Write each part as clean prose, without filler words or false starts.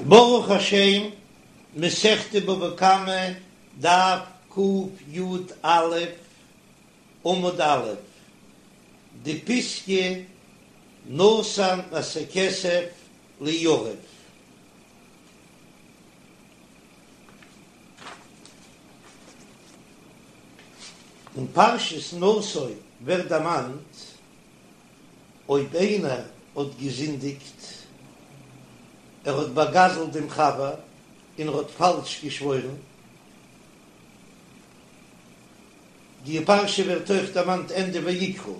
ברוך השם, מסכת בבא קמא, דף קי"א, עמוד א', די פיסקא נתן את הכסף ליריב. אין פרשת נשא ווערט דערמאנט אויב איינער האט געזינדיגט, ער האט באגזלט דעם חבר און ער האט פאלש געשוואוירן, די פרשה ווערט אויך דערמאנט ענדע ויקרא,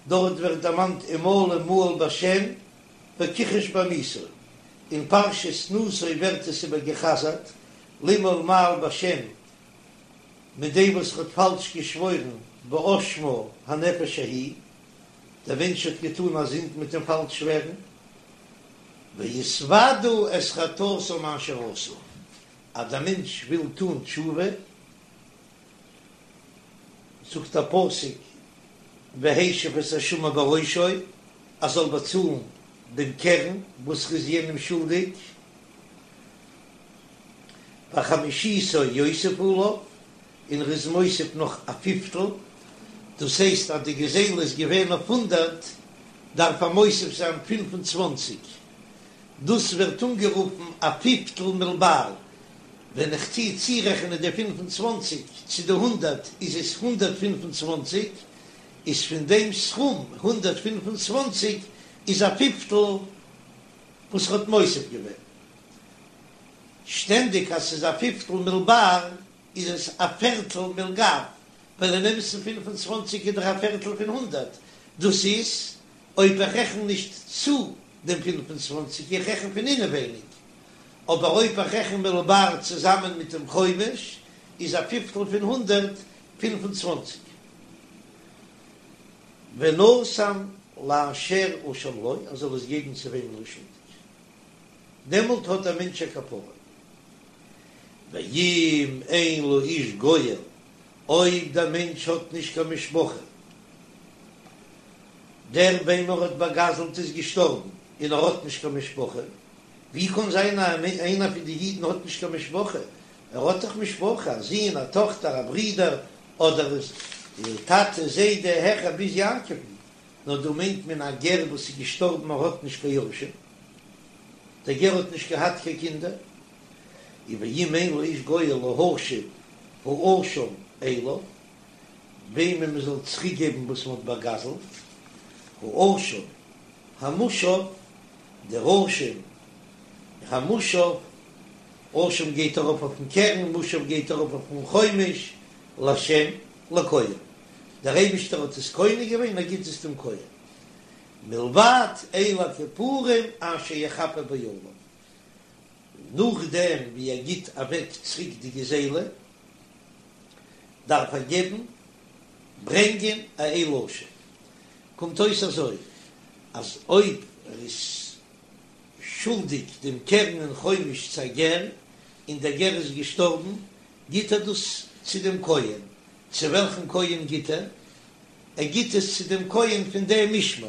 דארט ווערט דערמאנט ומעלה מעל בהשם וכחש בעמיתו, אין פרשת נשא ווערט עס איבער געחזרט, למעול מעל בהשם מיט דעם וואס ער האט פאלש געשוואוירן ואשמה הנפש ההיא, דער מענטש האט געטאן א זינד מיט דעם פאלש שווערן, והתודו את חטאתם אשר עשו, אז דער מענטש וויל טאן תשובה, זאגט דער פסוק והשיב את אשמו בראשו, ער זאל באצאלן דעם קרן וואס ר'איז יענעם שולדיג, וחמישיתו יוסיף עליו, און ר'איז מוסיף נאך א פיפטל, דאס הייסט אז די גזילה איז געווען אויף הונדערט, דארף ער מוסיף זיין 25, דאס ווערט אנגערופן א פיפטל מלבר, ווען איך טוה צורעכענען די 25 צו די הונדערט איז עס 125, איז פון דעם סכום 125 איז א פיפטל וואס ר'האט מוסיף געווען. שטענדיג אז ס'איז א פיפטל מלבר איז עס א פערטל מלגב, ווייל אין אמת'ן 25 איז דאך א פערטל פון הונדערט, דאס איז אויב איך רעכן נישט צו דעם 25, איך רעכן פון אינעווייניג, אבער אויב איך רעכן מלבר צוזאמען מיט דעם חומש איז א פיפטל פון הונדערט 25. ונתן לאשר אשם לו, ער זאל עס געבן צו וועמען ער איז שולדיג, דעמאלט האט דער מענטש א כפרה. ואם אין לאיש גואל, אויב דער מענטש האט נישט קיין משפחה, דער וועם ער האט באגזלט איז געשטארבן און ער האט נישט קיין משפחה, ווי קען זיין אז איינער פון די אידן האט נישט קיין משפחה? ער האט דאך משפחה, א זון, א טאכטער, א ברודער, אדער טאטע, זיידע, העכער ביז יעקב'ן, נאר דא מיינט מען א גר וואס איז געשטארבן ער האט נישט קיין יורשים, דער גר האט נישט געהאט קיין קינדער, און ואם אין לאיש גואל להשיב האשם אליו, וועמען מען זאל צוריק געבן וואס מען האט באגזלט, האשם המושב, דער אשם המושב, אשם גייט ארויף אויפן קרן, מושב גייט ארויף אויפן חומש, להשם לכהן, דער אייבישטער האט עס קונה געווען, ער גיט עס דעם כהן, מלבד איל הכפורים אשר יכפר בו עליו, נאכדעם ווי ער גיט אוועק צוריק די גזילה, דארף ער געבן, ברענגען, א איל אשם. קומט אויס אזוי, אז אויב ער איז שולדיג דעם קרן און חומש צו א גר, און דער גר איז געשטארבן, גיט ער דאס צו דעם כהן. צו וועלכן כהן גיט ער? ער גיט עס צו דעם כהן פון דעם משמר.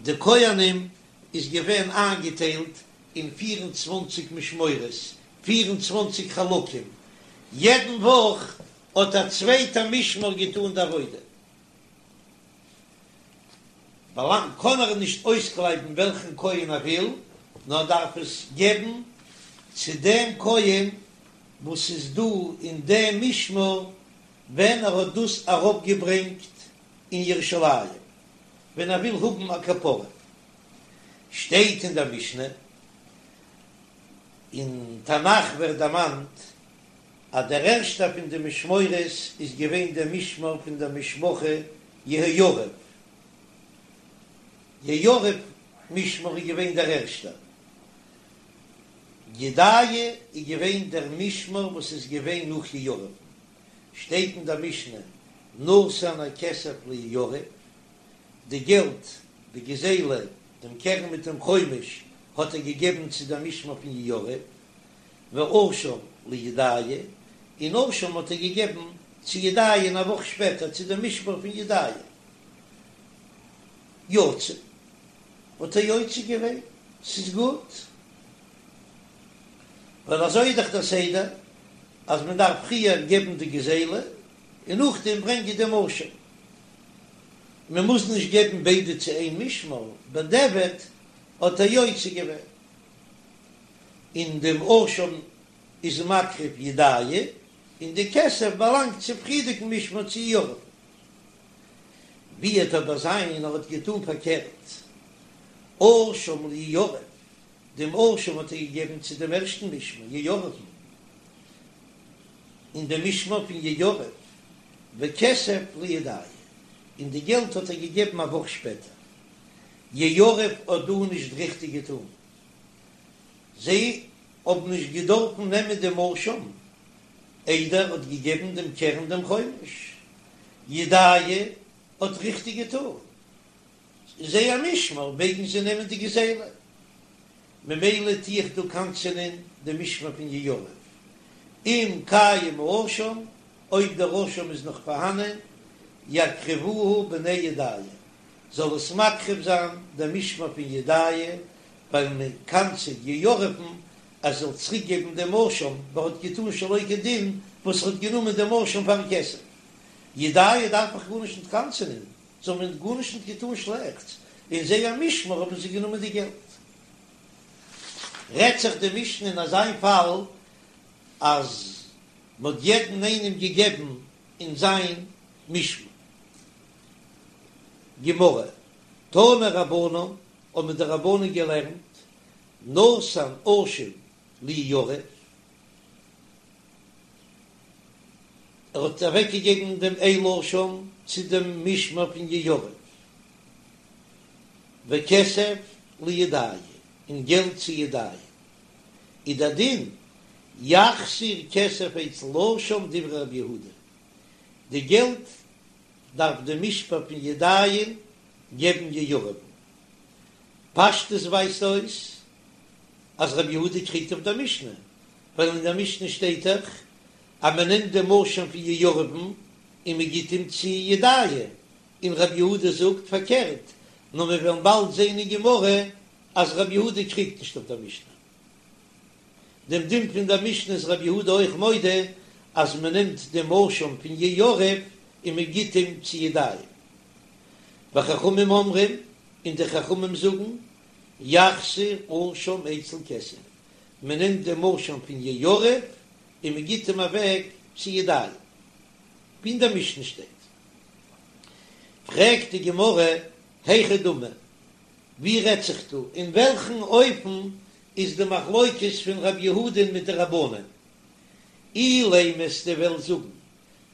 די כהנים איז געווען איינגעטיילט אין 24 משמורות, 24 חלקים, יעדן וואך האט א צווייטע משמר געטאן די עבודה. באלאנגט, קען ער נישט אויסקלייבן וועלכן כהן ער וויל, נאר דארף עס געבן צו דעם כהן וואס איז דא אין דעם משמר ווען ער האט דאס אראפגעברענגט אין ירושלים, ווען ער וויל האבן א כפרה. שטייט אין דער משנה, אין תנך ווערט דערמאנט אז דער ערשטער פון די משמורות איז געווען דער משמר פון דער משפחה יהויריב, יהויריב משמר איז געווען דער ערשטער, ידעיה איז געווען דער משמר וואס איז געווען נאך יהויריב'ן, שטייט אין דער משנה נתן הכסף ליהויריב, די געלט, די גזילה, דעם קרן מיט דעם חומש האט ער געגעבן צו דער משמר פון יהויריב, ואשם לידעיה, און אשם האט ער געגעבן צו ידעיה אין א וואך שפעטער צו דעם משמר פון ידעיה. יצא, האט ער יוצא געווען, ס'איז גוט. ווייל אזוי איז דאך דער סדר אז מען דארף פריער געבן די גזילה און נאכדעם ברענגען דעם אשם, מען מוז נישט געבן ביידע צו איין משמר, בדיעבד האט ער יוצא געווען, און דעם אשם איז מקריב ידעיה, און די כסף באלאנגט צום פריערדיגן משמר צו יהויריב. ווי וועט אבער זיין ער האט געטון פארקערט, אשם ליהויריב, דעם אשם האט ער געגעבן צו דעם ערשטן משמר יהויריב'ן, אין דעם משמר פון יהויריב, וכסף לידעיה, און די געלט האט ער געגעבן א וואך שפעטער. יהויריב האט דא נישט ריכטיג געטון, זיי האבן נישט געדארפן נעמען דעם אשם איידער ער האט געגעבן דעם קרן דעם חומש. ידעיה האט ריכטיג געטון, זייער משמר מעגן זיי נעמען די גזילה, ממילא טו איך דא קנס'ענען די משמר פון יהויריב, אם קיים האשם, אויב דער אשם איז נאך פארהאנען, יקריבוהו בני ידעיה, זאל עס מקריב זיין דער משמר פון ידעיה, ווייל מען קנס'עט יהויריב'ן אז ער זאל צוריק געבן דעם אשם, ווייל ער האט געטון שלא כדין וואס ער האט גענומען דעם אשם פארן כסף. ידעיה דארף איך גארנישט ניט קנס'ענען, זיי האבן גארנישט ניט געטאן שלעכטס, אין זייער משמר האבן זיי גענומען די געלט. רעדט זיך די משנה אין אזא פאל אז מ'האט יעדן איינעם געגעבן אין זיין משמר. גמרא, תנו רבנן, האבן די רבנן געלערנט, נתן אשם ליהויריב, ער האט אוועקגעגעבן דעם איל אשם צו דעם משמר פון יהויריב, וכסף לידעיה, און געלט צו ידעיה, איז דער דין, יחזיר כסף אצל אשם דברי רבי יהודה, די געלט דארף די משמר פון ידעיה געבן יהויריב'ן. פשטות ווייזט אויס אז רבי יהודה קריגט אויף דער משנה, ווייל אין דער משנה שטייט דאך אז מען נעמט דעם אשם פון יהויריב'ן און מען גיט אים צו ידעיה, און רבי יהודה זאגט פארקערט, נאר מיר וועלן באלד זען אין גמרא אז רבי יהודה קריגט נישט אויף דער משנה. דעם דין פון דער משנה איז רבי יהודה אויך מודה אז מען נעמט דעם אשם פון יהויריב און מען גיט אים צו ידעיה. וחכמים אומרים, און די חכמים זאגן, יחזיר אשם אצל כסף, מען נעמט דעם אשם פון יהויריב און מען גיט אים אוועק צו ידעיה, ווי אין דער משנה שטייט. פרעגט די גמרא, היכי דמי, ווי רעדט זיך דא, אין וועלכן אופן איז די מחלוקת פון רב יהודה'ן מיט די רבנן? אילימא וועסטו וועלן זאגן,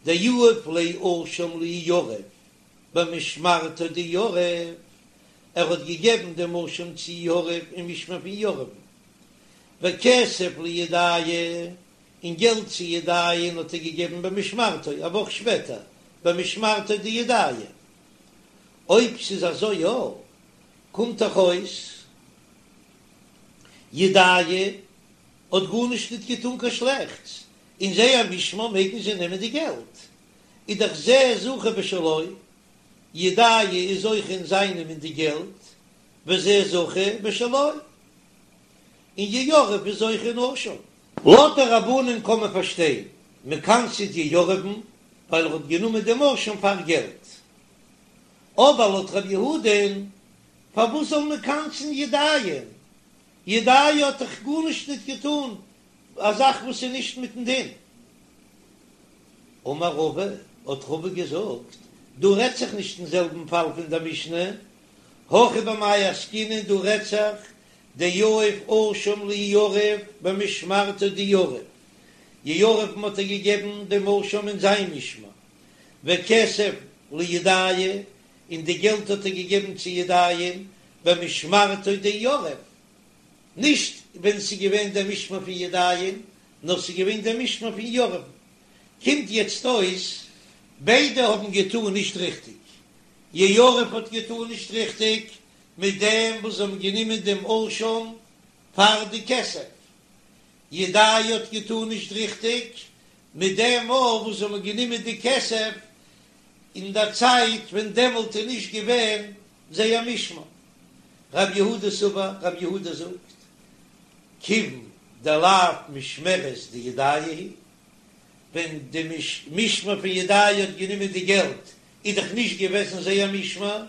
דיהיב ליה אשם ליהויריב במשמרתו דיהויריב, ער האט געגעבן דעם אשם צו יהויריב אין משמר פון יהויריב'ן, וכסף לידעיה, און געלט צו ידעיה'ן האט ער געגעבן במשמרתו א וואך שפעטער, במשמרתו דידעיה. אויב ס'איז אזוי יא, קומט דאך אויס ידעיה האט גארנישט ניט געטאן קיין שלעכטס, אין זייער משמר מעגן זיי נעמען די געלט, איז דאך זה זכה בשלו, ידעיה איז זוכה אין זיינעם אין די געלט, וזה זכה בשלו, און יהויריב איז זוכה אין אשם. לויט די רבנן קען מען פארשטיין, מ'קנס'עט יהויריב'ן ווייל ער האט גענומען דעם אשם פאר געלט, אבער לויט רבי יהודה'ן פארוואס זאל מען קנס'ן ידעיה'ן? ידעיה האט דאך גארנישט ניט געטאן א זאך וואס איז נישט מיטן דין. אמר רבא, האט רבא געזאגט, דא רעדט זיך נישט אין זעלבן פאל פון דער משנה, הכא במאי עסקינן, דא רעדט זיך דיהיב אשם ליהויריב במשמרתו דיהויריב, יהויריב'ן האט ער געגעבן דעם אשם אין זיין משמר, וכסף לידעיה, און די געלט האט ער געגעבן צו ידעיה'ן במשמרתו דיהויריב, נישט ווען ס'איז געווען דער משמר פון ידעיה'ן, נאר ס'איז געווען דער משמר פון יהויריב'ן. קומט יעצט אויס ביידע האבן געטאן נישט ריכטיג, יהויריב האט געטאן נישט ריכטיג מיט דעם וואס זיי האבן גענומען דעם אשם פאר די כסף, ידעיה האט געטאן נישט ריכטיג מיט דעם אויך וואס זיי האבן גענומען די כסף אין דער צייט ווען דעמאלט איז נישט געווען זייער משמר. רב יהודה סבר, רב יהודה זאגט, כיוון. דלאו משמרת דידעיה היא, ווען די משמר פון ידעיה האט גענומען די געלט איז דאך נישט געוועזן זייער משמר,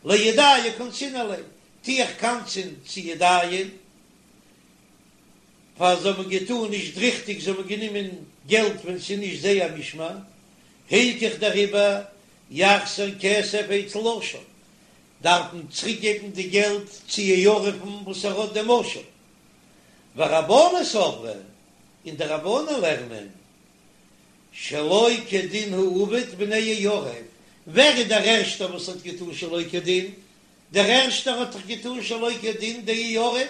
לידעיה קנסינן ליה, טו איך קנס'ען צו ידעיה, פאר זיי האבן געטאן נישט ריכטיג, זיי האבן גענומען געלט ווען ס'איז נישט זייער משמר, הילכך דעריבער יחזיר כסף אצל אשם, דארף מען צוריק געבן די געלט צו יריב'ן וואס ער האט דעם אשם. ורבנן סברי, און די רבנן לערנען שלא כדין הוא עבד בני יריב, ווער איז דער ערשטער וואס האט געטאן שלא כדין? דער ערשטער האט דאך געטאן שלא כדין די יריב.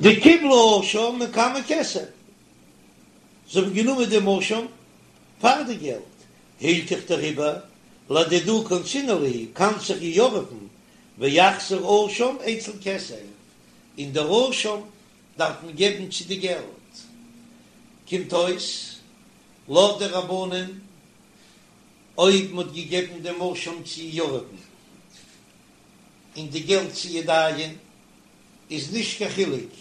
דקיבלו אשם מקמי כסף, זיי האבן גענומען דעם אשם פאר די געלט, הילכך דעריבער לדידהו קנסינן להו, קנס איך יריב'ן ויחזיר אשם אצל כסף, און דער אשם דארף מען געבן צו די געלט, קומט אויס לויט די רבנן אויב מען האט געגעבן דעם אשם צו יריב'ן און די געלט צו ידעיה'ן איז נישט קיין חילוק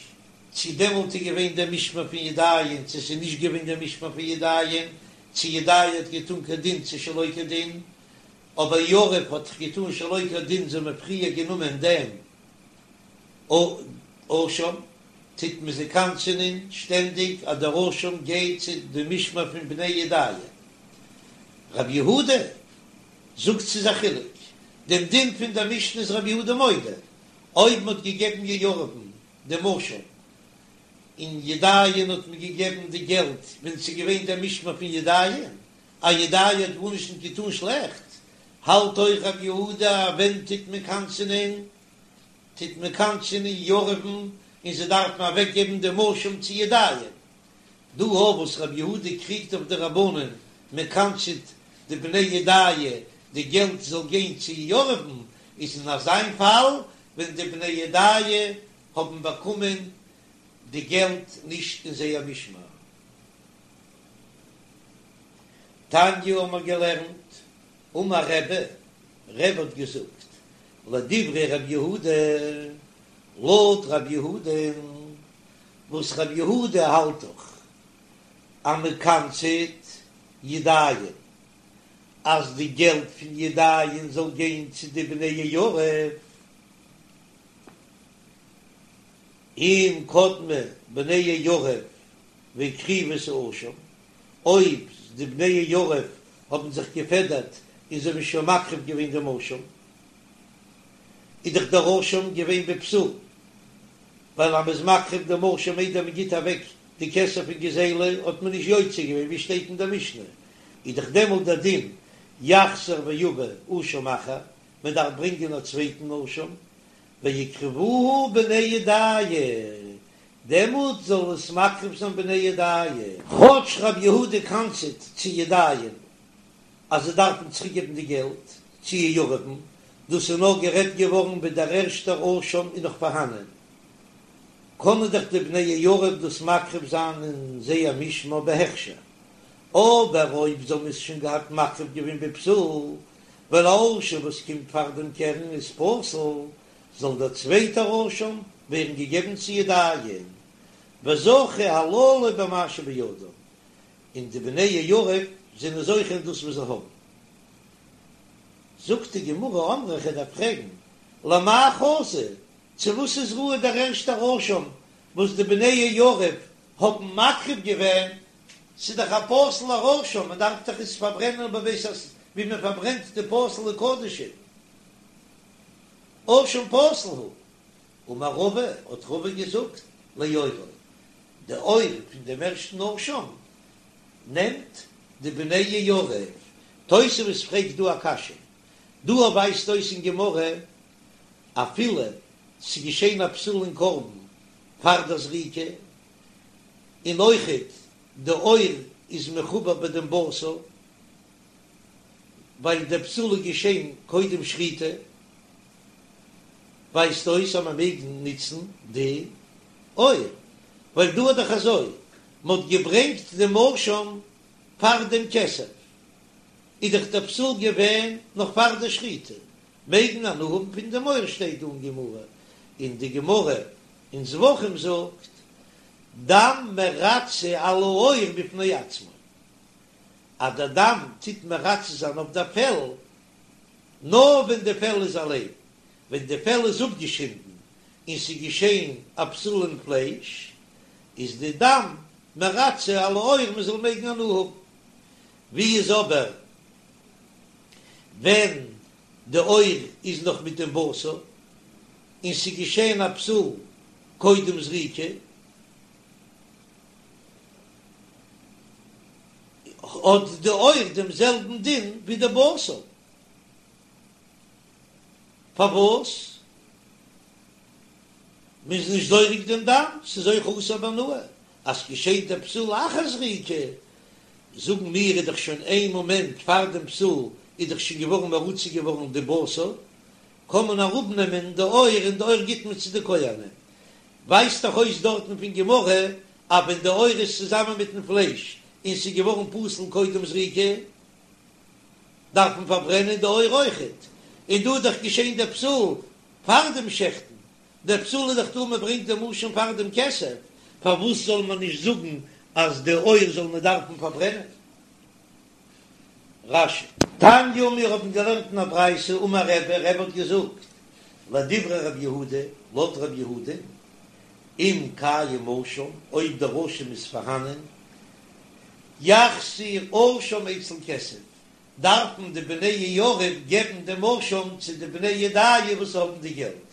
צו דעמאלט איז געווען דער משמר פון ידעיה'ן צו ס'איז נישט געווען דער משמר פון ידעיה'ן, צו ידעיה האט געטון כדין צו שלא כדין, אבער יריב האט געטון שלא כדין זיי האבן פריער גענומען דעם אשם, טוט מען זיי קנס'ענען שטענדיג אז דער אשם גייט צו די משמר פון בני ידעיה. רבי יהודה זאגט ס'איז א חילוק, דעם דין פון דער משנה איז רבי יהודה מודה, אויב מ'האט געגעבן יריב'ן דעם אשם און ידעיה'ן האט מען געגעבן די געלט ווען ס'איז געווען דער משמר פון ידעיה'ן, אז ידעיה האט גארנישט נישט געטון שלעכט, האלט אויך רבי יהודה אז ווען טוט מען קנס'ענען טוט מען קנס'ענען יריב'ן און זיי דארפן אוועק געבן דעם אשם צו ידעיה'ן. דא אויף וואס רבי יהודה קריגט אויף די רבנן מען קנס'עט די בני ידעיה די געלט זאל גיין צו יריב'ן איז אין אזיין פאל ווען די בני ידעיה האבן באקומען די געלט נישט אין זייער משמר. תניא האבן מיר געלערנט, אמר רבי, רבי האט געזאגט, לדברי רבי יהודה, לויט רבי יהודה, וואס רבי יהודה האלט דאך אז מען קנס'עט ידעיה'ן אז די געלט פון ידעיה'ן זאל גיין צו די בני יריב, אם קדמו בני יריב והקריבו את האשם, אויב די בני יריב האבן זיך געפעדערט און זיי האבן שוין מקריב געווען דעם אשם, איז דאך דער אשם געווען בפסול, ווייל אז מ'איז מקריב דעם אשם איידער מ'גיט אוועק די כסף פון גזילה האט מען נישט יוצא געווען ווי שטייט אין דער משנה, איז דאך דעמאלט דער דין יחזור ויבא אשם אחר, מען דארף ברענגען א צווייטן אשם, ויקריבוהו בני ידעיה, דעמאלט זאל עס מקריב זיין בני ידעיה. כאטש רבי יהודה קנס'עט צו ידעיה'ן אז זיי דארפן צוריקגעבן די געלט צו יריב'ן, דאס איז נאר גערעדט געווארן ווען דער ערשטער אשם איז נאך פארהאנען, קענען דאך די בני יריב דאס מקריב זיין אין זייער משמר בהכשר, אבער אויב זיי האבן עס שוין געהאט מקריב געווען בפסול, ווייל א אשם וואס קומט פאר דעם קרן איז פסול, זאל דער צווייטער אשם ווערן געגעבן צו ידעיה'ן, וזכו הללו במה שבידם, און די בני יריב זענען זוכה אין דאס וואס זיי האבן. זאגט די גמרא אמרי כ'דארף פרעגן, למאי חזי, צו וואס איז ראוי דער ערשטער אשם וואס די בני יריב האבן מקריב געווען, ס'איז דאך א פסול'ער אשם, מען דארף דאך עס פארברענען בבית הש ווי מען פארברענט די פסול'ע קדשים, אשם פסול הוא. אמר רבא, האט רבא געזאגט, לעורו, די עור פון דעם ערשטן אשם נעמט די בני יריב. תוספות פרעגט דא א קשיא, דא ווייזט אויס אין גמרא אפילו ס'איז געשען א פסול אין קרבן פאר דער זריקה, און אויכעט די עור איז מחובר ביי דעם בשר, ווייל דער פסול איז געשען קודם שחיטה, ווייזט אויס אז מען מעג נוצן די עור, ווייל דא איז דאך אזוי, מען האט געברענגט דעם אשם פאר דעם כסף, איז דאך דער פסול געווען נאך פאר די שחיטה, מעג מען הנאה האבן פון דעם עור שטייט דא אין גמרא, און די גמרא אין זבחים זאגט. דם מרצה על העור בפני עצמו, אז דער דם טוט מרצה זיין אויף דער פעל, נאר ווען די פעל איז אליין, ווען די פעל איז אפגעשינדן און ס'איז געשען א פסול אין פלייש, איז די דם מרצה על העור מען זאל מעגן הנאה האבן. ווי איז אבער ווען די עור איז נאך מיט דעם בשר און ס'איז געשען א פסול קודם זריקה, האט די עור דעם זעלבן דין ווי די בשר. פארוואס? מ'איז נישט זורק דעם דם, ס'איז אויך אסור בהנאה. אז ס'געשעט דער פסול לאחר זריקה, זאגן מיר איז דאך שוין איין מאמענט פאר דעם פסול איז דאך שוין געווארן מרוצה געווארן די בשר, קען מען אראפנעמען די עור און די עור גיט מען צו די כהנים. ווייזט דאך אויס דארטן פון גמרא אז ווען די עור איז צוזאמען מיטן פלייש און ס'איז געווארן פסול קודם זריקה, דארף מען פארברענען די עור אויכעט, און דא איז דאך געשען דער פסול פאר דעם שעכטן, דער פסול איז דאך דא מען ברענגט דעם אשם פאר דעם כסף, פארוואס זאל מען נישט זאגן אז די עור זאל מען דארפן פארברענען? רש"י. תניא מיר האבן געלערנט אין א ברייתא אמר רבי, רבי האט געזאגט, לדברי רבי יהודה, לויט רבי יהודה, אם קיים אשם, אויב דער אשם איז פארהאנען, יחזיר אשם אצל כסף, דארפן די בני יהויריב געבן דעם אשם צו די בני ידעיה וואס האבן די געלט.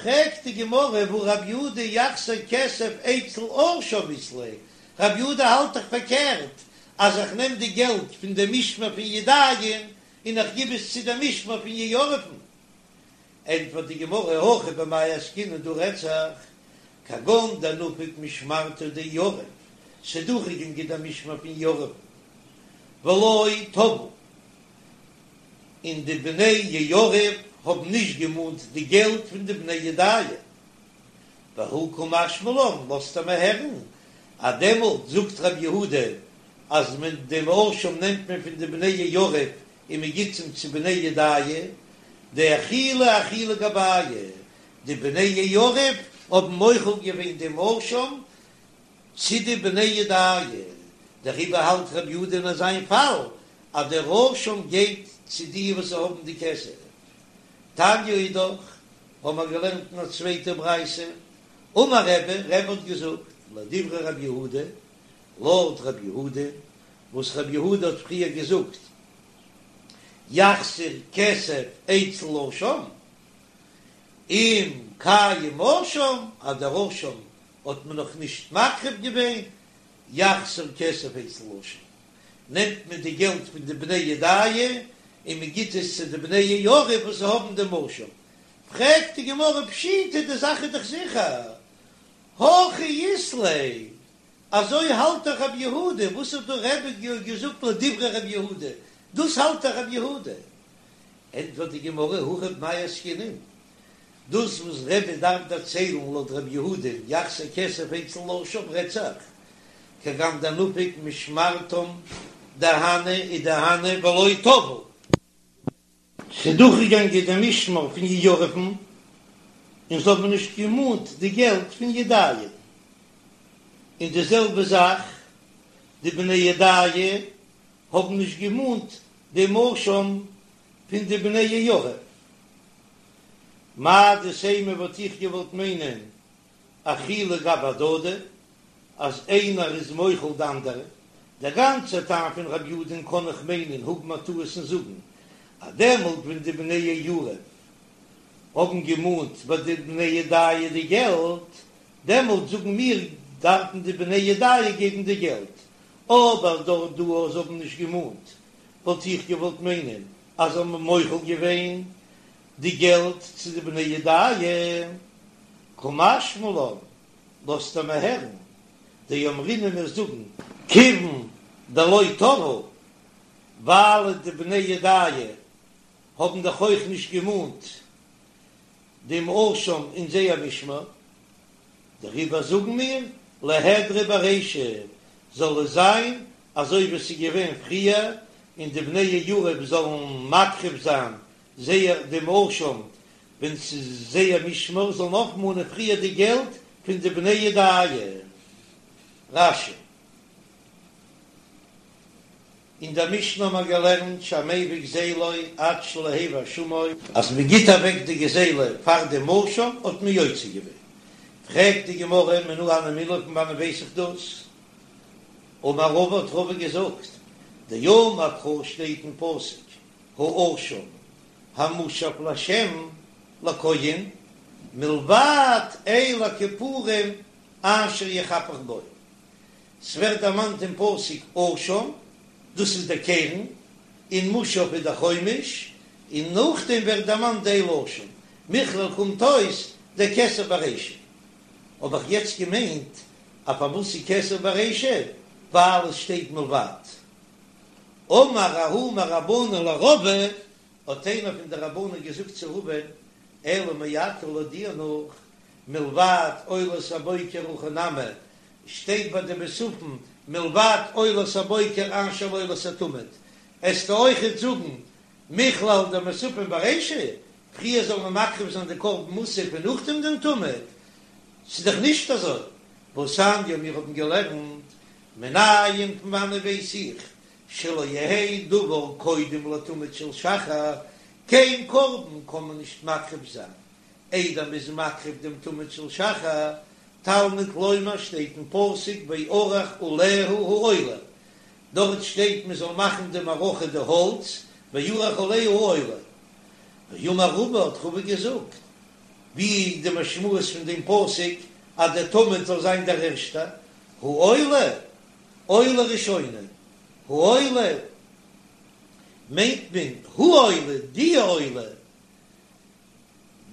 פרעגט די גמרא והא רב יהודה יחזיר כסף אצל אשם אית ליה, רב יהודה האלט דאך פארקערט אז איך נעם די געלט פון די משמר פון ידעיה'ן און איך גיב עס צו די משמר פון יהויריב'ן. ענטפערט די גמרא הכא במאי עסקינן דא רעדט זיך כגון דנפק משמרתו דיהויריב, ס'איז דורכגעגאנגען דער משמר פון יהויריב'ן ולא תבעו, און די בני יהויריב האבן נישט געמאנט די געלט פון די בני ידעיה, והא קא משמע לן, לאזט ער מיר הערן אז דעמאלט זאגט רבי יהודה אז מען דעם אשם נעמט מען פון די בני יהויריב און מען גיט אים צו בני ידעיה, דאחילו אחילו גבייהו, די בני יהויריב האבן מוחל געווען דעם אשם צו די בני ידעיה, דעריבער האלט רבי יהודה אין אזיין פאל אז דער אשם גייט צו די וואס האבן די כסף. תניא אידך, האבן מיר געלערנט אין א צווייטע ברייתא, אמר רבי, רבי האט געזאגט, לדברי רבי יהודה, לויט רבי יהודה, וואס רבי יהודה האט פריער געזאגט, יחזיר כסף אצל אשם, אם קיים אשם, אז דער אשם האט מען נאך נישט מקריב געווען, יחזיר כסף אצל אשם, נעמט מען די געלט פון די בני ידעיה און מען גיט עס צו די בני יהויריב וואס האבן דעם אשם. פרעגט די גמרא פשיטא, די זאך איז דאך זיכער, הכי אית ליה, אזוי האלט דאך רבי יהודה, וואס האט דא רבי געזאגט לדברי רבי יהודה, דאס האלט דאך רבי יהודה. ענטפערט די גמרא, הכא במאי עסקינן, דאס וואס רבי דארף דערציילן לויט רבי יהודה יחזיר כסף אצל אשם רעדט זיך כגון דנפק משמרתם דהני ודהני ולא תבעו. ס'איז דורכגעגאנגען די משמר פון יהויריב'ן און זיי האבן נישט געמאנט די געלט פון ידעיה, און די זעלבע זאך די בני ידעיה האבן נישט געמאנט דעם אשם פון די בני יהויריב. מהו דתימא וואלט איך געוואלט מיינען אחילו גבי הדדי אז איינער איז מוחל די אנדערע, דער גאנצער טעם פון רב יהודה'ן קען איך מיינען האבן א טעות און זאגן אז דעמאלט ווען די בני יהויריב האבן געמאנט ביי די בני ידעיה די געלט, דעמאלט זאגן מיר דארפן די בני ידעיה געבן די געלט, אבער דארט דא אז זיי האבן נישט געמאנט וואלט איך געוואלט מיינען אז זיי האבן מוחל געווען די געלט צו די בני ידעיה, קא משמע לן, לאזט ער מיר הערן, דאמרינן מיר זאגן כיוון דלא תבעו, ווייל די בני ידעיה האבן דאך אויך נישט געמאנט דעם אשם אין זייער משמר, דעריבער זאגן מיר ליהדרו ברישא, זאל עס זיין אזוי ווי עס איז געווען פריער, און די בני יהויריב זאלן מקריב זיין זייער דעם אשם ווען ס'איז זייער משמר, זאלן אויפמאנען פריער די געלט פון די בני ידעיה. רש"י. אין דער משנה האבן מיר געלערנט שהמביא גזילו עד שלא הביא אשמו, אז מען גיט אוועק די גזילה פאר דעם אשם האט מען יוצא געווען, פרעגט די גמרא מנא הני מילי פון וואנען ווייס איך דאס? אמר רבא האט רבא געזאגט, דאמר קרא שטייט אין פסוק האשם המושב להשם לכהן מלבד איל הכפורים אשר יכפר בו, ס'ווערט דערמאנט אין פסוק אשם, דאס איז דער קרן, און מושב איז דער חומש, און נאכדעם ווערט דערמאנט די איל אשם, מכלל קומט אויס דכסף ברישא. האב איך יעצט געמיינט אז פארוואס איז כסף ברישא, ווייל עס שטייט מלבד. אמר ההוא מרבנן לרבא, האט איינער פון די רבנן געזאגט צו רבא'ן, אלא מעתה לויט דיר נאך, מלבד עולת הבוקר הכי נמי, שטייט ביי די מוספים מלבד עולת הבוקר אשר לעולת התמיד, עסטו אויכעט זאגן מכלל דמוספים ברישא, פריער זאל מען מקריב זיין די קרבן מוסף און נאכדעם דעם תמיד, ס'איז דאך נישט אזוי, והתניא מיר האבן געלערנט מנין פון וואנען ווייס איך שלא יהא דבר קודם לתמיד של שחר, קיין קרבן קען מען נישט מקריב זיין איידער מ'איז מקריב דעם תמיד של שחר, תלמוד לומר שטייט אין פסוק וערך עליה העולה, דארט שטייט מען זאל מאכן די מערכה די האלץ, וערך עליה העולה. ואמר רבא האט רבא געזאגט, ווי איז די משמעות פון דעם פסוק אז דער תמיד זאל זיין דער ערשטער, העולה עולה ראשונה, העולה מיינט מען העולה די עולה,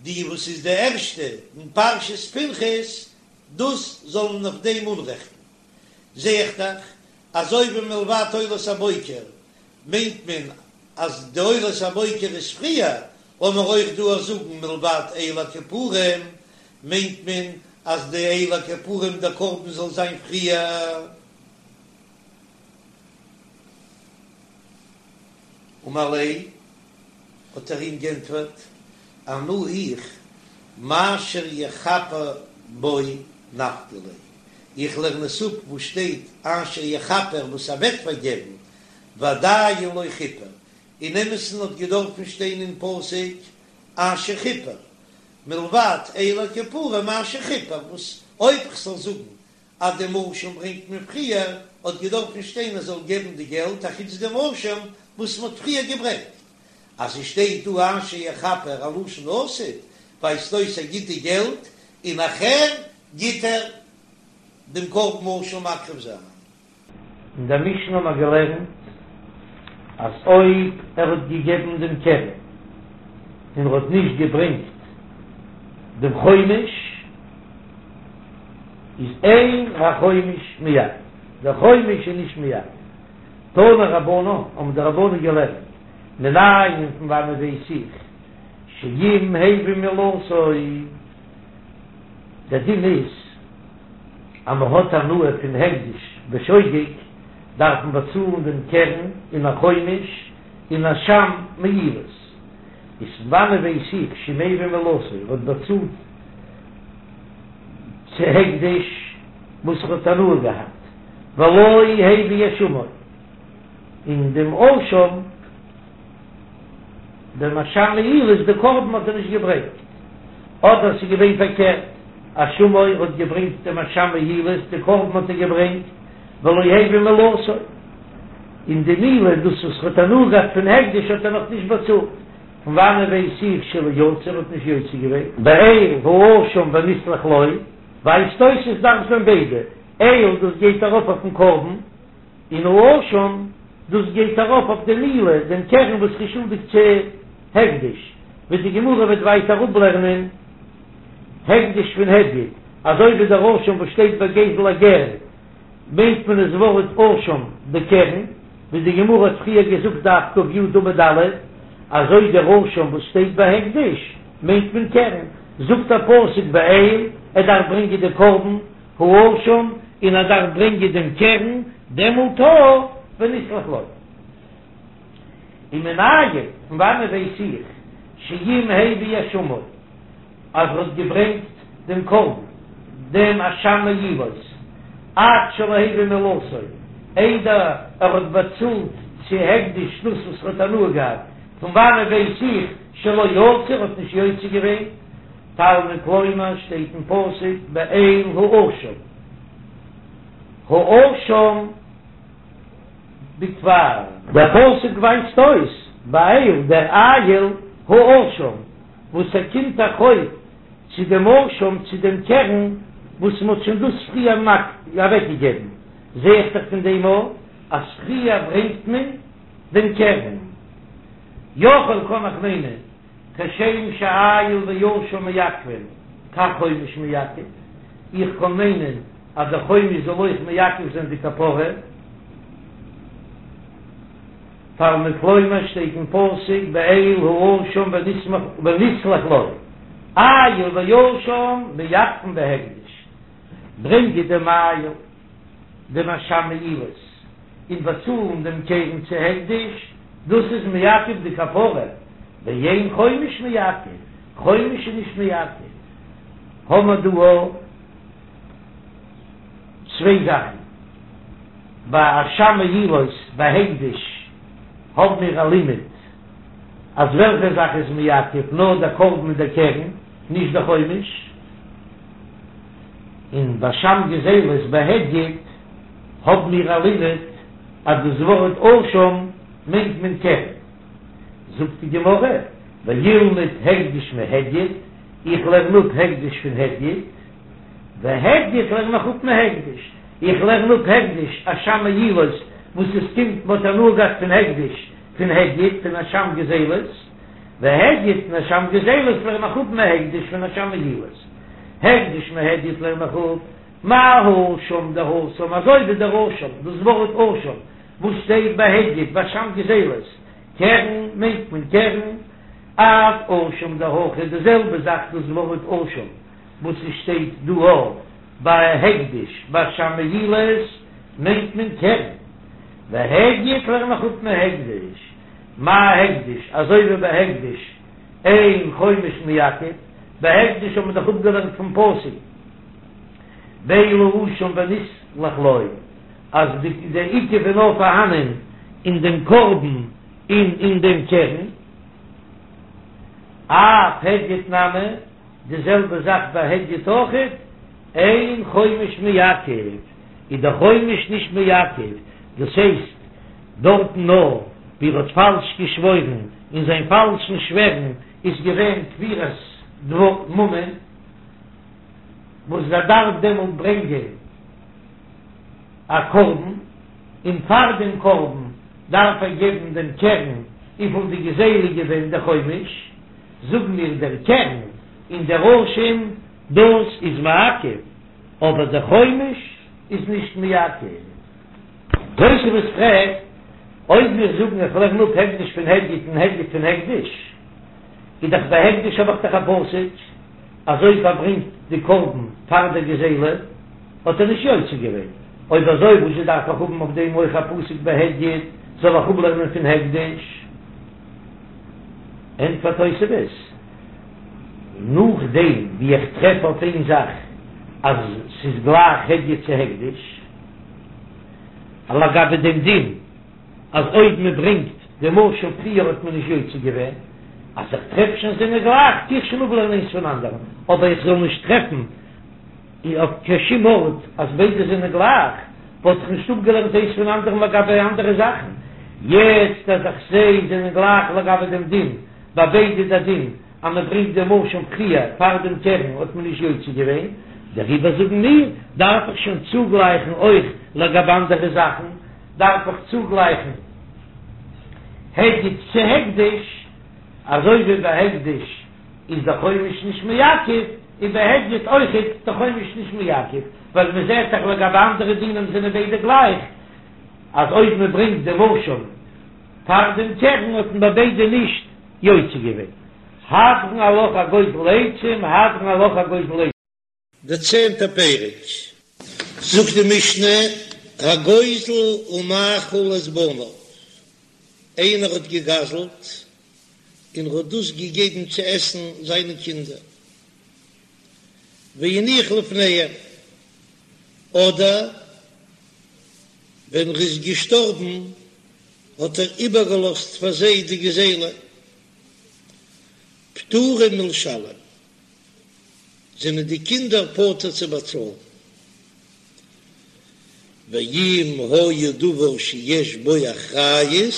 די וואס איז די ערשטע אין פרשת פנחס, דאס זאל מען אויף דעם אנרעכטן. זע איך דאך אזוי ווי מלבד עולת הבוקר מיינט מען אז די עולת הבוקר איז פריער, לאמיר אויך דא זאגן מלבד איל הכפורים מיינט מען אז די איל הכפורים דער קרבן זאל זיין פריער. אמר ליה, האט ער אים גענטפערט, אנא איך, מאשר יכפר בו נפקא לי, איך לערן עס אפ וואס שטייט אשר יכפר וואס ער וועט פארגעבן, ועדיין לא כיפר, אין אמת'ן האט געדארפן שטיין אין פסוק אשר כיפר, מלבד איל הכפורים אשר כיפר, וואס אויב כ'זאל זאגן אז דעם אשם ברענגט מען פריער, האט געדארפן שטיין ער זאל געבן די געלט אחוץ דעם אשם וואס מען האט פריער געברענגט. אז עס שטייט דא אשר יכפר א לשון עתיד, ווייזט אויס ער גיט די געלט און נאכהער גיט ער דעם קרבן אשם מקריב זיין. אין דער משנה האבן מיר געלערנט אז אויב ער האט געגעבן דעם קרן און ער האט נישט געברענגט דעם חומש, איז אין החומש מעכב, דער חומש איז נישט מעכב. תנו רבנן, האבן די רבנן געלערנט, מנין פון וואנען ווייס איך שאם הביא מעילתו, דער דין איז אז מען האט הנאה פון הקדש בשוגג דארף מען באצאלן דעם קרן און א חומש און אשם מעילות, איז פון וואנען ווייס איך שאם הביא מעילתו ער האט באצאלט צו הקדש וואס ער האט הנאה געהאט ולא הביא אשמו און דעם אשם דעם אשם מעילות די קרבן האט ער נישט געברענגט, אדער ס'איז געווען פארקערט, אשמו האט געברענגט דעם אשם מעילות די קרבן האט ער געברענגט, ולא הביא מעילתו, און די מעילה דאס וואס ר'האט הנאה געהאט פון הקדש האט ער נאך נישט באצאלט, פון וואנען ווייס איך שלא יצא ער האט נישט יוצא געווען? באיל האשם ונסלח לו, ווייזט אויס עס דארף זיין ביידע, איל דאס גייט ארויף אויפן קרבן, און האשם, דאס גייט ארויף אויף די מעילה, דעם קרן וואס איז שולדיג צו הקדש, ווי די גמרא וועט ווייטער אפלערנען הקדש פון הדיוט, אזוי ווי דער אשם וואס שטייט ביי גזל הגר מיינט מען עס ווארט אשם די קרן, ווי די גמרא האט פריער געזאגט דף ק"י עמוד א', אזוי דער אשם וואס שטייט ביי הקדש מיינט מען קרן, זאגט דער פסוק באיל ער דארף ברענגען די קרבן, האשם און ער דארף ברענגען דעם קרן, דעמאלט ונסלח לו. ומנין, פון וואנען ווייס איך, שאם הביא אשמו, אז ער האט געברענגט דעם קרבן, דעם אשם מעילות. עד שלא הביא מעילתו, איידער ער האט באצאלט צו הקדש דאס וואס ער האט הנאה געהאט, פון וואנעט ווייס איך שלא יצא, ער האט נישט יוצא געווען? תלמוד לומר שטייט אין פסוק באיל האשם, האשם בכפר. דער פסוק ווייזט אויס באיל דער איל האשם וואס ער קומט א חוב צו דעם אשם צו דעם קרן וואס מען האט שוין דאס פריער אוועקגעגעבן, זע איך דאך פון דעם אויך אז פריער ברענגט מען דעם קרן. יכול קען איך מיינען כשם שאיל ואשם מעכבין כך חומש מעכב, איך קען מיינען אז דער חומש זאל אויך מעכב זיין די כפרה. תלמוד לומר שטייט אין פסוק באיל האשם ונסלח לו, איל ואשם מעכבין בהקדש, ברענגען דעם איל דעם אשם מעילות און באצאלן דעם קרן צו הקדש, דאס איז מעכב די כפרה, ואין חומש מעכב, חומש איז נישט מעכב, האמער דא צוויי זאכן. ביי אשם מעילות בהקדש האבן מיר א לימוד אז וועלכע זאך איז מעכב נאר דער קרבן מיט דער קרן, נישט דער חומש, און ביי אשם גזילות בהדיוט האבן מיר א לימוד אז דאס ווארט אשם מיינט מען קרן. זאגט די גמרא, וילמד הקדש מהדיוט, איך לערן אפ הקדש פון הדיוט, והדיוט לערן איך אפ מהקדש, איך לערן אפ הקדש אשם מעילות וואס עס קומט מ'האט הנאה געהאט פון הקדש פון הדיוט פון אשם גזילות, והדיוט פון אשם גזילות לערן איך אפ מהקדש פון אשם מעילות, הקדש מהדיוט לערן איך אפ מה האשם דהתם אזוי ווי דער אשם דאס ווארט אשם וואס שטייט ביי הדיוט ביי אשם גזילות קרן מיינט מען קרן אף אשם דהכא די זעלבע זאך דאס ווארט אשם. וואס עס שטייט דא ביי הקדש ביי אשם מעילות מיינט מען קרן, והדיוט לערן איך אפ מהקדש, מה הקדש אזוי ווי ביי הקדש אין חומש מעכב, ביי הקדש האט מען דאך אפגעלערנט פון פסוק באיל האשם ונסלח לו אז די עיכוב איז נאר פארהאנען אין דעם קרבן און אין דעם קרן, אף הדיוט נמי. די זעלבע זאך ביי הדיוט אויכעט, אין חומש מעכב, איז דער חומש נישט מעכב, דאס הייסט דארטן נאר ווי ער האט פאלש געשוואוירן, און זיין פאלשן שווערן איז געווען כפירת ממון, וואס ער דארף דעמאלט ברענגען א קרבן, און פאר דעם קרבן דארף ער געבן דעם קרן וויפיל די גזילה איז געווען דער חומש. זאגן מיר דער קרן און דער אשם דאס איז מעכב, אבער דער חומש איז נישט מעכב. תוספות פרעגט, אויב מיר זאגן איך לערן אפ הקדש פון הדיוט און הדיוט פון הקדש, איז דאך ביי הקדש האב איך דאך א פסוק אז אויב ער ברענגט די קרבן פאר דער גזילה האט ער נישט יוצא געווען, אויב אזוי וואזשע דארף איך האבן אויף דעם אויך א פסוק ביי הדיוט, זאל איך אפלערנען פון הקדש? ענטפערט תוספות, נאכדעם ווי איך טרעף אויף איין זאך אז ס'איז גלייך הדיוט צו הקדש, לגבי דעם דין אז אויב מען ברענגט דעם אשם פריער האט מען נישט יוצא געווען, אז איך טרעף שוין זענען גלייך טו איך שוין אפלערנען איינס פון אנדערן, אבער איך זאל נישט טרעפן אויף קיין שום ארט אז ביידע זענען גלייך, וואלט איך נישט אפגעלערנט איינס פון אנדערן לגבי אנדערע זאכן. יעצט אז איך זע זענען גלייך לגבי דעם דין, ביי ביידע דער דין אז מען ברענגט דעם אשם פריער פאר דעם קרן האט מען נישט יוצא געווען, דעריבער זאגן מיר, דארף איך שוין צוגלייכן אויך לגבי אנדערע זאכן, דארף איך צוגלייכן הדיוט צו הקדש, אזוי ווי ביי הקדש. איז דער חומש נישט מעכב, און ביי הדיוט אויכעט דער חומש נישט מעכב, ווייל מען זעט דאך לגבי אנדערע דינים זענען ביידע גלייך, אז אויב מען ברענגט דעם אשם פאר דעם קרן האט מען ביי ביידע נישט יוצא געווען. הדרן עלך הגוזל עצים, הדרן עלך הגוזל עצים. דער צענטער פרק, זאגט די משנה, הגוזל ומאכיל את בניו, איינער האט געגזלט און ער האט דאס געגעבן צו עסן זיינע קינדער, והניח לפניהם, אדער. ווען ער איז געשטארבן האט ער איבערגעלאזט פאר זיי די גזילה, פטורים מלשלם, זענען די קינדער פטור צו באצאלן. ואם היה דבר שיש בו אחריות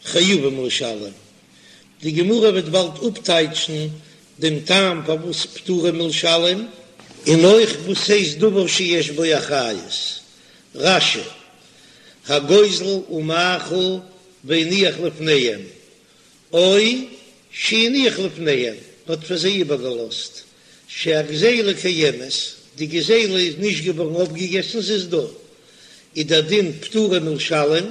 חייבים לשלם, די גמרא וועט באלד אפטייטשן דעם טעם פארוואס פטורים מלשלם, און אויך וואס הייסט דבר שיש בו אחריות, רש"י, הגוזל ומאכיל והניח לפניהם, או שהניח לפניהם, האט פאר זיי איבערגעלאזט, שהגזילה קיימת, די גזילה איז נישט געווארן אויפגעגעסן, ס'איז דא, איז דער דין פטורים מלשלם,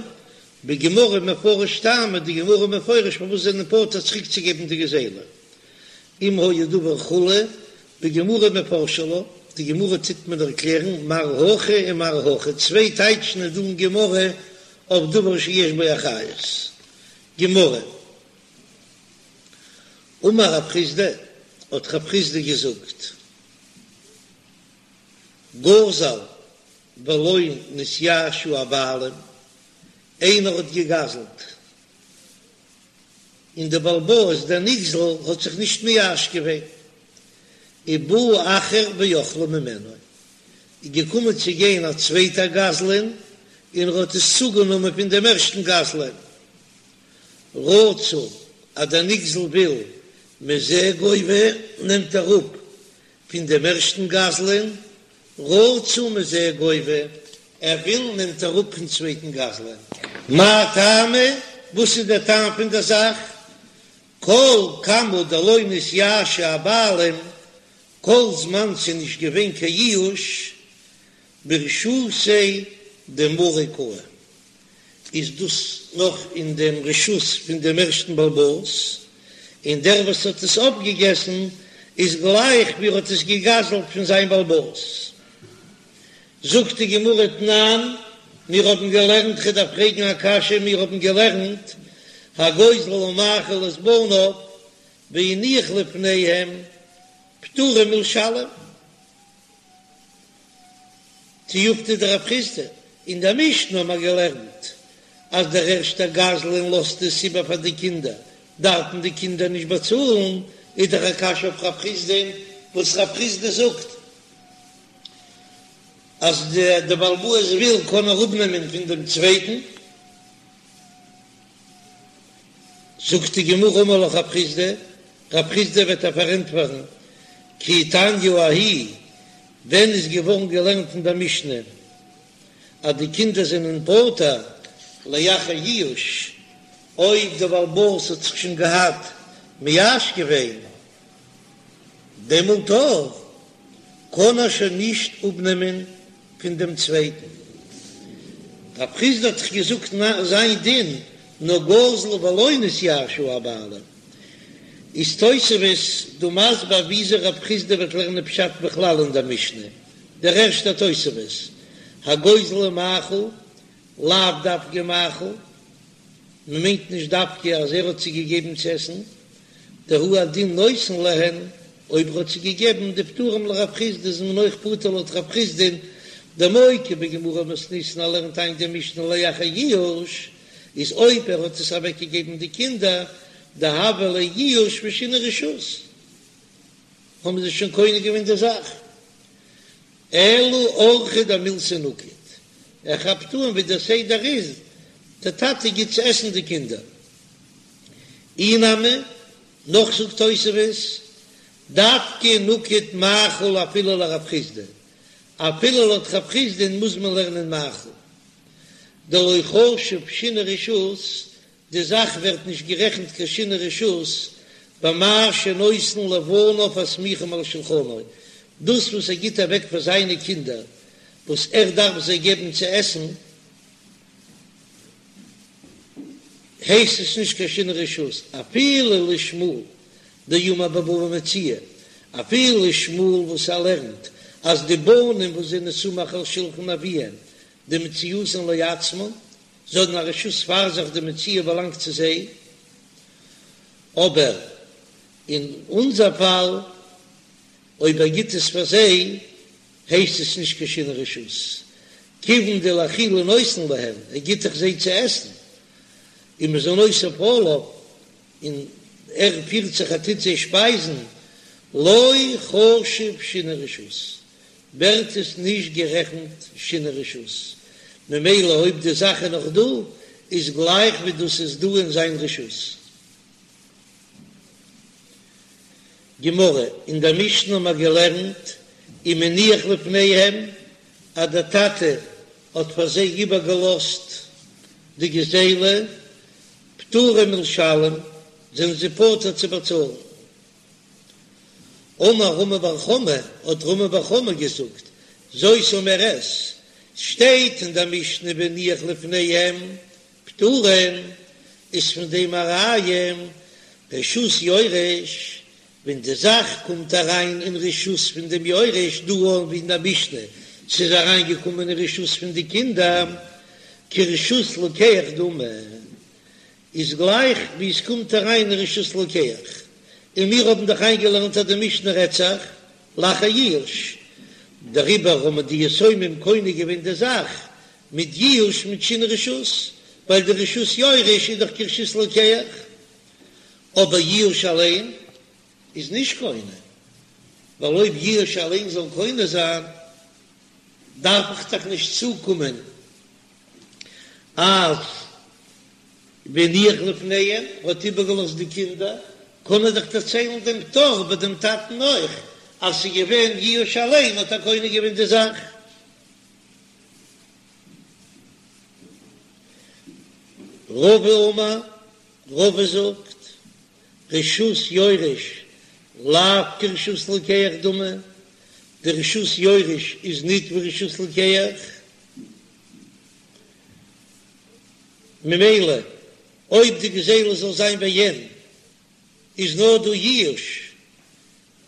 בגמרא מפרש טעמא, די גמרא מפרש פארוואס זענען פטור צוריקצוגעבן די גזילה, אם היה דבר כו', בגמרא מפרשא לה, די גמרא טוט מען ערקלערן מר הכי און מר הכי, צוויי טייטשן איז דא אין גמרא אויף דבר שיש בו אחריות. גמרא, אמר רב חסדא, האט רב חסדא געזאגט, גזל ולא נתייאשו הבעלים, איינער האט געגזלט און דער בעל הבית דער נגזל האט זיך נישט מייאש געווען, ובא אחר ואכלו ממנו, איז געקומען צו גיין א צווייטער גזלן און ער האט עס צוגענומען פון דעם ערשטן גזלן, רצה אז דער נגזל וויל מזה גובה נעמט ער אפ פון דעם ערשטן גזלן, רצה מזה גובה, ער וויל נעמט ער אפ פון צווייטן גזלן. מאי טעמא, וואס איז דער טעם פון דער זאך? כל כמה דלא נתייאשו הבעלים, כל זמן ס'איז נישט געווען קיין ייאוש, ברשותיה דמריה קאי, איז דאס נאך אין דעם רשות פון דעם ערשטן בעל הבית, און דער וואס האט עס אויפגעגעסן איז גלייך ווי ער האט עס געגזלט פון זיין בעל הבית. זאגט די גמרא תנן, מיר האבן געלערנט, כ'דארף פרעגן א קשיא, מיר האבן געלערנט, הגוזל ומאכיל את בניו והניח לפניהם פטורים מלשלם. תיובתא דרב חסדא, אין דער משנה האבן מיר געלערנט אז דער ערשטער גזלן לאזט עס איבער פאר די קינדער, דארפן די קינדער נישט באצאלן, איז דאך א קשיא אויף רב חסדא, וואס רב חסדא זאגט אז דער בעל הבית וויל קען ער אפנעמען פון דעם צווייטן. זאגט די גמרא אמר לך רב חסדא, רב חסדא וועט דיר פארענטפערן, כי תניא ההיא, ווען איז געווארן געלערנט אין דער משנה אז די קינדער זענען פטור לאחר ייאוש, אויב דער בעל הבית האט זיך שוין געהאט מייאש געווען, דעמאלט אויך קען ער שוין נישט אפנעמען פון דעם צווייטן. רב חסדא האט דאך געזאגט זיין דין נאר גזל ולא נתייאשו הבעלים. איז תוספות דא מסביר וויאזוי רב חסדא וועט לערנען פשט בכלל אין דער משנה. דער ערשטער תוספות, הגוזל ומאכיל, לאו דווקא מאכיל, מען מיינט נישט דווקא אז ער האט זיי געגעבן צו עסן, דהוא הדין נותן להן, אויב ער האט זיי געגעבן דפטורים לרב חסדא איז מען אויך פטור לויט רב חסדא'ן, דמוקי בגמרא מתניתין ער לערנט איין די משנה לאחר ייאוש, איז אויב ער האט עס אוועק געגעבן די קינדער דהוה ליה ייאוש ושינוי רשות האבן זיי שוין קונה געווען די זאך, אלא אורחא דמילתא נקט, ער כאפט אן ווי דער סדר איז, דער טאטע גיט צו עסן די קינדער. אי נמי, נאך זאגט תוספות, דווקא נקט מאכיל אפילו לרב חסדא, אפילו לויט רב חסדא'ן מוז מען לערנען מאכיל, דלא חשיב שינוי רשות, די זאך ווערט נישט גערעכנט קיין שינוי רשות במה שנותן לבניו הסמוכים על שלחנו, דאס וואס ער גיט אוועק פאר זיינע קינדער וואס ער דארף זיי געבן צו עסן, הייסט עס נישט קיין שינוי רשות, אפילו לשמואל דאמר בבא מציעא, אפילו שמואל וואס ער לערנט אז די בנים וואס זענען סמוך על שלחן אביהם דמציאתן לעצמן, זיי האבן א רשות פאר זיך די מציאה באלאנגט צו זיי, אבער אין אונזער פאל אויב ער גיט עס פאר זיי הייסט עס נישט קיין שינוי רשות. כיוון דלאכילה נותן להם, ער גיט דאך זיי צו עסן, ומזונותיו עליו, און ער פירט זיך ער טוט זיי שפייזן, לא חשיב שינוי רשות, ווערט עס נישט גערעכנט שינוי רשות, ממילא אויב די זאך איז נאך דא, איז גלייך ווי דאס איז דא אין זיין רשות. גמרא, אין דער משנה האבן מיר געלערנט, אם הניח לפניהם, אז דער טאטע האט פאר זיי איבערגעלאזט די גזילה, פטורים מלשלם, זענען זיי פטור צו באצאלן. אמר רמי בר חמא, האט רמי בר חמא געזאגט, זאת אומרת, שטייט אין דער משנה והניח לפניהם פטורים, איז פון דעם א ראיה, רשות יורש, ווען די זאך קומט אריין אין רשות פון דעם יורש, דא אן ווי אין דער משנה, ס'איז אריין געקומען אין רשות פון די קינדער, כרשות לוקח דמי, איז גלייך ווי עס קומט אריין אין רשות לוקח, און מיר האבן דאך איינגעלערנט אז די משנה רעדט זיך לאחר ייאוש, דעריבער האבן די יתומים קונה געווען די זאך מיט ייאוש מיט שינוי רשות, ווייל די רשות יורש איז דאך כרשות לוקח, אבער ייאוש אליין איז נישט קונה, ווייל אויב ייאוש אליין זאל קונה זיין דארף איך דאך נישט צוקומען אז והניח לפניהם האט איבערגעלאזט די קינדער, קען ער דאך דערציילן דעם פטור ביי דעם טאטן אויך, אז ס'איז געווען ייאוש אליין האט ער קונה געווען די זאך. רבא אמר, רבא זאגט, רשות יורש לאו כרשות לוקח דמי, די רשות יורש איז ניט ווי רשות לוקח, ממילא אויב די גזילה זאל זיין בעין איז נאר דא ייאוש,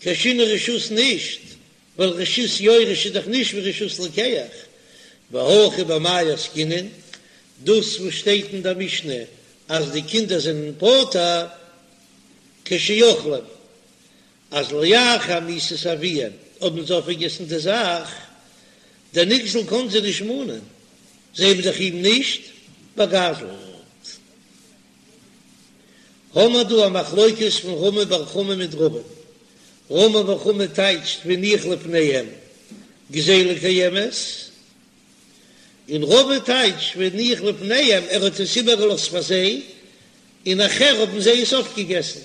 קיין שינוי רשות נישט, ווייל רשות יורש איז דאך נישט ווי רשות לוקח, והכא במאי עסקינן, דאס וואס שטייט אין דער משנה אז די קינדער זענען פטור כשאוכלים, אז לאחר מיתת אביהם האבן זיי אויפגעגעסן די זאך, דער נגזל קען זיי נישט מאנען, זיי האבן דאך אים נישט באגזלט. האמער דא א מחלוקת פון רמי בר חמא מיט רבא. רמי בר חמא טייטשט והניח לפניהם גזילה קיימת, און רבא טייטשט והניח לפניהם ער האט עס איבערגעלאזט פאר זיי, און נאכער האבן זיי עס אויפגעגעסן.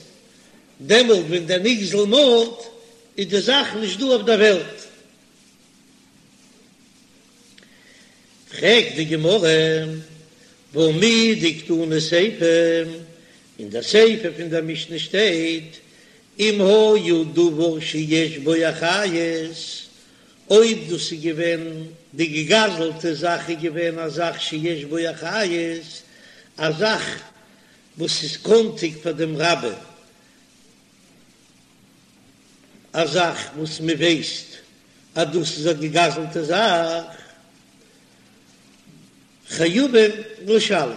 דעמאלט ווען דער נגזל מאנט איז די זאך נישט דא אויף דער וועלט. פרעגט די גמרא, והא מדקתני סיפא, אין דער סיפא פון דער משנה שטייט, אם היה דבר שיש בו אחריות, אויב דאס איז געווען די געגזלטע זאך איז געווען א זאך שיש בו אחריות, א זאך וואס איז קאנטיג פאר דעם רבים, א זאך וואס מען ווייסט אז דאס איז א געגזלטע זאך, חייבים לשלם,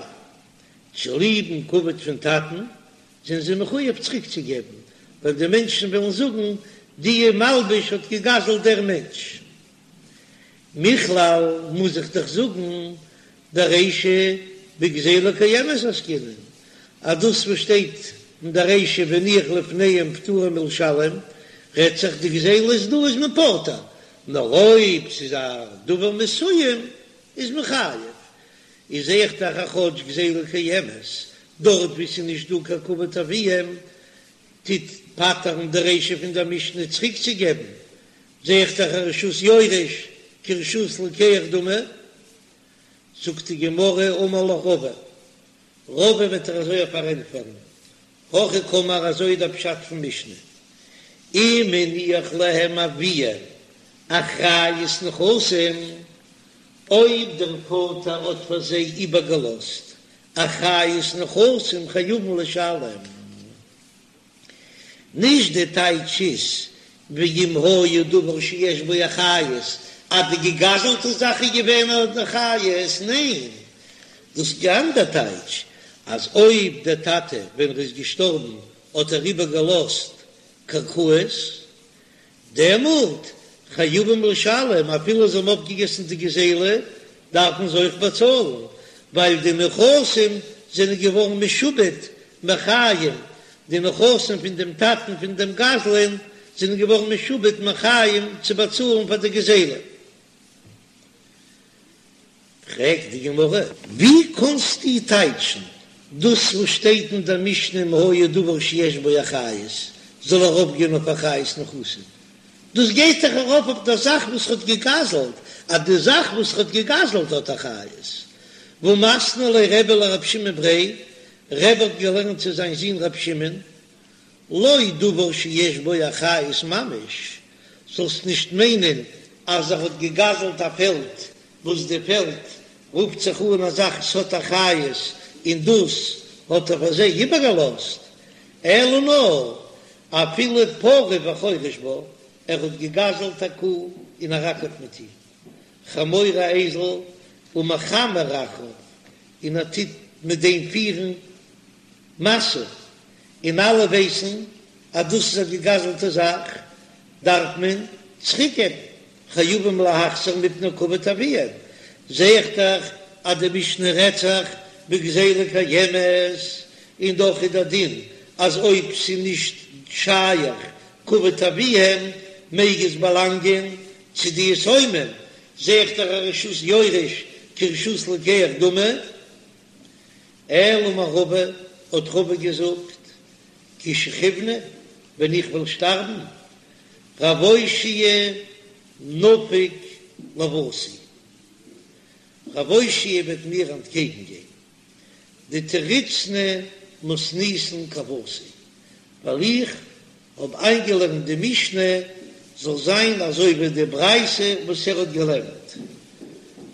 צוליבן כבוד פון טאטן זענען זיי מחויב צוריקצוגעבן, ווייל די מענטשן וועלן זאגן, די מלבוש האט געגזלט דער מענטש. מכלל מוז איך דאך זאגן דרישא בגזילה קיימת עסקינן, אז דאס וואס שטייט אין די רישא והניח לפניהם פטורים מלשלם, רעדט זיך די גזילה איז דא איז מען פטור, נאר אויב ס'איז א דבר מסוים איז מען חייב, איז זעה איך דאך אז כאטש גזילה קיימת, דארט וואו ס'איז נישט דא קיין כבוד אביהם טוט פטר'ן די רישא פון דער משנה צוריקצוגעבן, זעה איך דאך אז רשות יורש כרשות לוקח דמי. זאגט די גמרא אמר לך רבא, רבא וועט דיר אזוי פארענטפערן, הכי קאמר אזוי איז דער פשט פון משנה, אם הניח להם אביהם אחריות נכסים, אויב דער פאטער האט פאר זיי איבערגעלאזט אחריות נכסים חייבים לשלם. נישט די טייטש איז ואם היה דבר שיש בו אחריות אז די געגזלטע זאך איז געווען אן אחריות, ניין דאס איז די אנדער טייטש אז אויב דער טאטע ווען ער איז געשטארבן האט ער איבער געלאזט קרקעות דעמאלט חייבים לשלם אפילו זיי האבן אויפגעגעסן די גזילה. דארפן זיי אויך באצאלן, ווייל די נכסים זענען געווארן משועבד מחיים, די נכסים פון דעם טאטן פון דעם גזלן זענען געווארן משועבד מחיים צו באצאלן פאר די גזילה. פרעגט די גמרא, ווי קאנסטו טייטשן דאס וואס שטייט אין דער משנה אם היה דבר שיש בו אחריות זאל ארויפגיין אויף אחריות נכסים? דאס גייט דאך ארויף אויף דער זאך וואס ער האט געגזלט, אז די זאך וואס ער האט געגזלט האט אחריות. והא מתני ליה רבי לרב שמעון בריה, רבי האט געלערנט צו זיין זון רב שמעון, לא דבר שיש בו אחריות ממש, זאלסט נישט מיינען אז ער האט געגזלט א פעלד וואס די פעלד רופט זיך אן א זאך ס'האט אחריות און דאס האט ער פאר זיי איבערגעלאזט, אלא נאר אפילו פרה וחורש בה, ער האט געגזלט א קו און ער אקערט מיט איר, חמור א אייזל ומחמר אחריו און ער טוט מיט דעם פירן משא, און אלע ווייסן אז דאס איז א געגזלטע זאך, דארף מען צוריקגעבן, חייבים להחזיר מפני כבוד אביהם, זע איך דאך אז די משנה רעדט זיך בגזילה קיימת, און דאך איז דער דין אז אויב ס'איז נישט שייך כבוד אביהם מעג עס באלאנגען צו די יתומים, זע איך דאך אז רשות יורש כרשות לוקח דמי. אלא אמר רבא, האט רבא געזאגט, כי שכיבנא, ווען איך וועל שטארבן, רב אושעיא נפיק לוותי, רב אושעיא וועט מיר אנטקעגן גיין, דתריצנא מתניתין כוותי, ווייל איך האב איינגעלערנט די משנה זאל זיין אזוי ווי די ברייתא וואס ער האט געלערנט.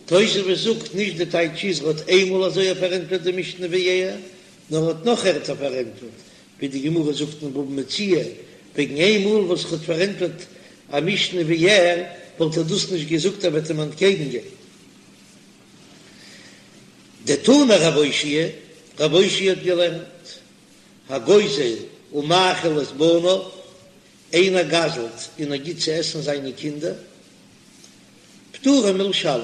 תוספות זאגט נישט די טייטש איז ער האט איינמאל אזוי פארענטפערט די משנה ווי ער, נאר ער האט נאך ערטער פארענטפערט, ווי די גמרא זאגט אין בבא מציעא, וועגן איינמאל וואס ער האט פארענטפערט א משנה ווי ער, וואלט ער דאס נישט געזאגט ער וועט אים אנטקעגן גיין. דתני רב אושעיא, רב אושעיא האט געלערנט. הגוזל ומאכיל את בניו, איינער גזל'ט און ער גיט צו עסן זיינע קינדער, פטורים מלשלם,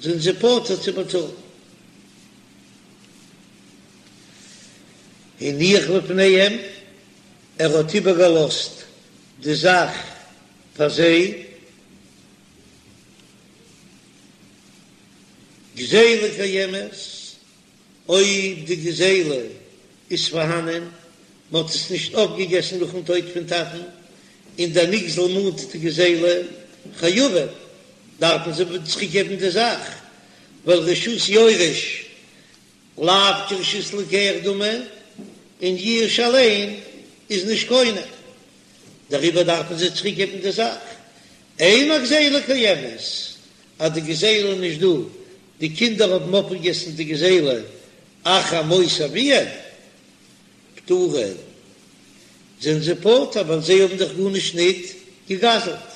זענען זיי פטור צו באצאלן. הניח לפניהם, ער האט איבערגעלאזט די זאך פאר זיי, גזילה קיימת, אויב די גזילה איז פארהאנען, מען האט עס נישט אויפגעגעסן נאכן טויט פון טאטן, און דער נגזל מאנט די גזילה, חייבים, דארפן זיי צוריקגעבן די זאך, ווייל רשות יורש לאו כרשות לוקח דמי, און יאוש אליין איז נישט קונה, דעריבער דארפן זיי צוריקגעבן די זאך. אין הגזילה קיימת, אז די גזילה איז נישט דא, די קינדער האבן אויפגעגעסן די גזילה אחר מות אביהם, פטורין, זענען זיי פטור ווייל זיי האבן דאך גארנישט ניט געגזלט.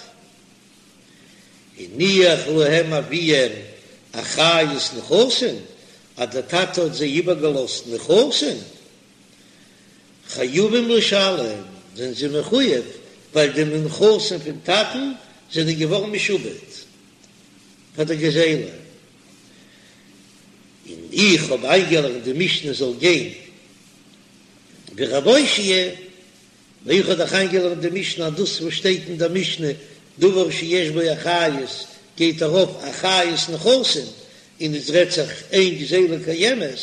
הניח להם אביהם אחריות נכסים, אז דער טאטע האט זיי איבערגעלאזט נכסים, חייבים לשלם, זענען זיי מחויב, ווייל די נכסים פון טאטן זענען געווארן משועבד. פאר די גזילה, און איך האב איינגעלערנט די משנה זאל גיין ווי רב אושעיא, און איך האב דאך איינגעלערנט די משנה אז דאס וואס שטייט אין דער משנה דבר שיש בו אחריות גייט ארויף אחריות נכסים, און עס רעדט זיך אין גזילה קיימת,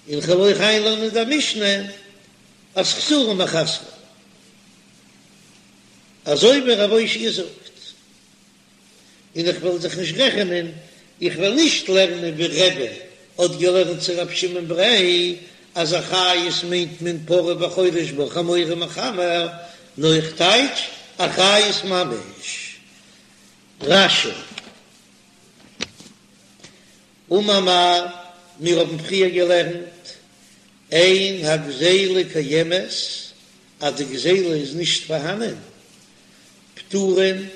און כ'וועל אויך איינלערנען די משנה אז חסורי מחסרא, אזוי ווי רב אושעיא זאגט. און איך וועל זיך נישט רעכענען, איך וועל נישט לערנען ווי רבי האט געלערנט צו רב שמעון בריה אז אחריות מיינט מען פרה וחורש בה חמור ומחמר, נאר איך טייטש אחריות ממש. רש"י. אמר מר, מיר האבן פריער געלערנט, אין הגזילה קיימת, אז די גזילה איז נישט פארהאנען, פטורין,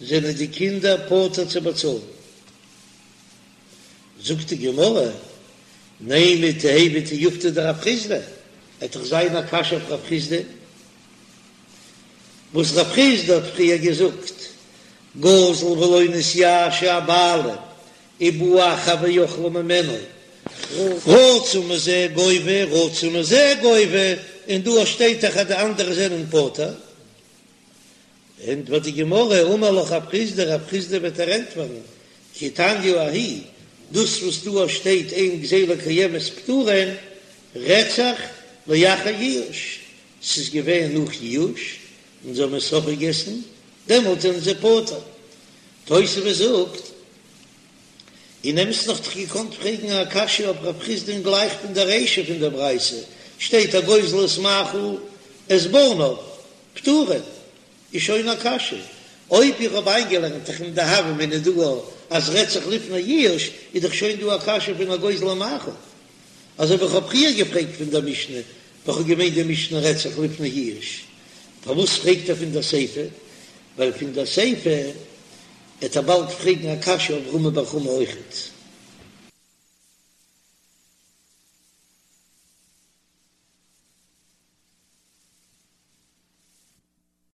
זענען די קינדער פטור צו באצאלן. זאגט די גמרא, נימא תיהוי תיובתא דרב חסדא, עט דאך זיין א קשיא אויף רב חסדא, וואס רב חסדא האט פריער געזאגט, גזל ולא נתייאשו הבעלים. ובא אחר ואכלה ממנו, רצה מזה גובה רצה מזה גובה, און דא שטייט דאך אז די אנדערע זענען פטור. ענטפערט די גמרא, אמר לך רב חסדא, רב חסדא וועט דיר ענטפערן, כי תניא ההיא, דאס וואס דא שטייט אין גזילה קיימת פטורין, רעדט זיך לאחר ייאוש, ס'איז געווען נאך ייאוש, און זיי האבן עס אויפגעגעסן, דעמאלט זענען זיי פטור. תוספות זאגט, אין אמת'ן וואלט איך געקאנט פרעגן א קשיא אויף רב חסדא'ן גלייך פון דער רישא פון דער ברייתא, שטייט הגוזל את מאכל את בניו, פטורין, איז שוין א קשיא. אויב איך האב איינגעלערנט דאך אין די הוה אמינא דא אז רעדט זיך לפני ייאוש, איז דאך שוין דא א קשיא פון הגוזל המאכל. אזוי ווי איך האב פריער געפרעגט פון דער משנה, ווען כ'האב געמיינט די משנה רעדט זיך לפני ייאוש. פארוואס פרעגט ער פון דער סיפא? ווייל פון דער סיפא עט ער באלד פרעגן א קשיא אויף רמי בר חמא אויכעט.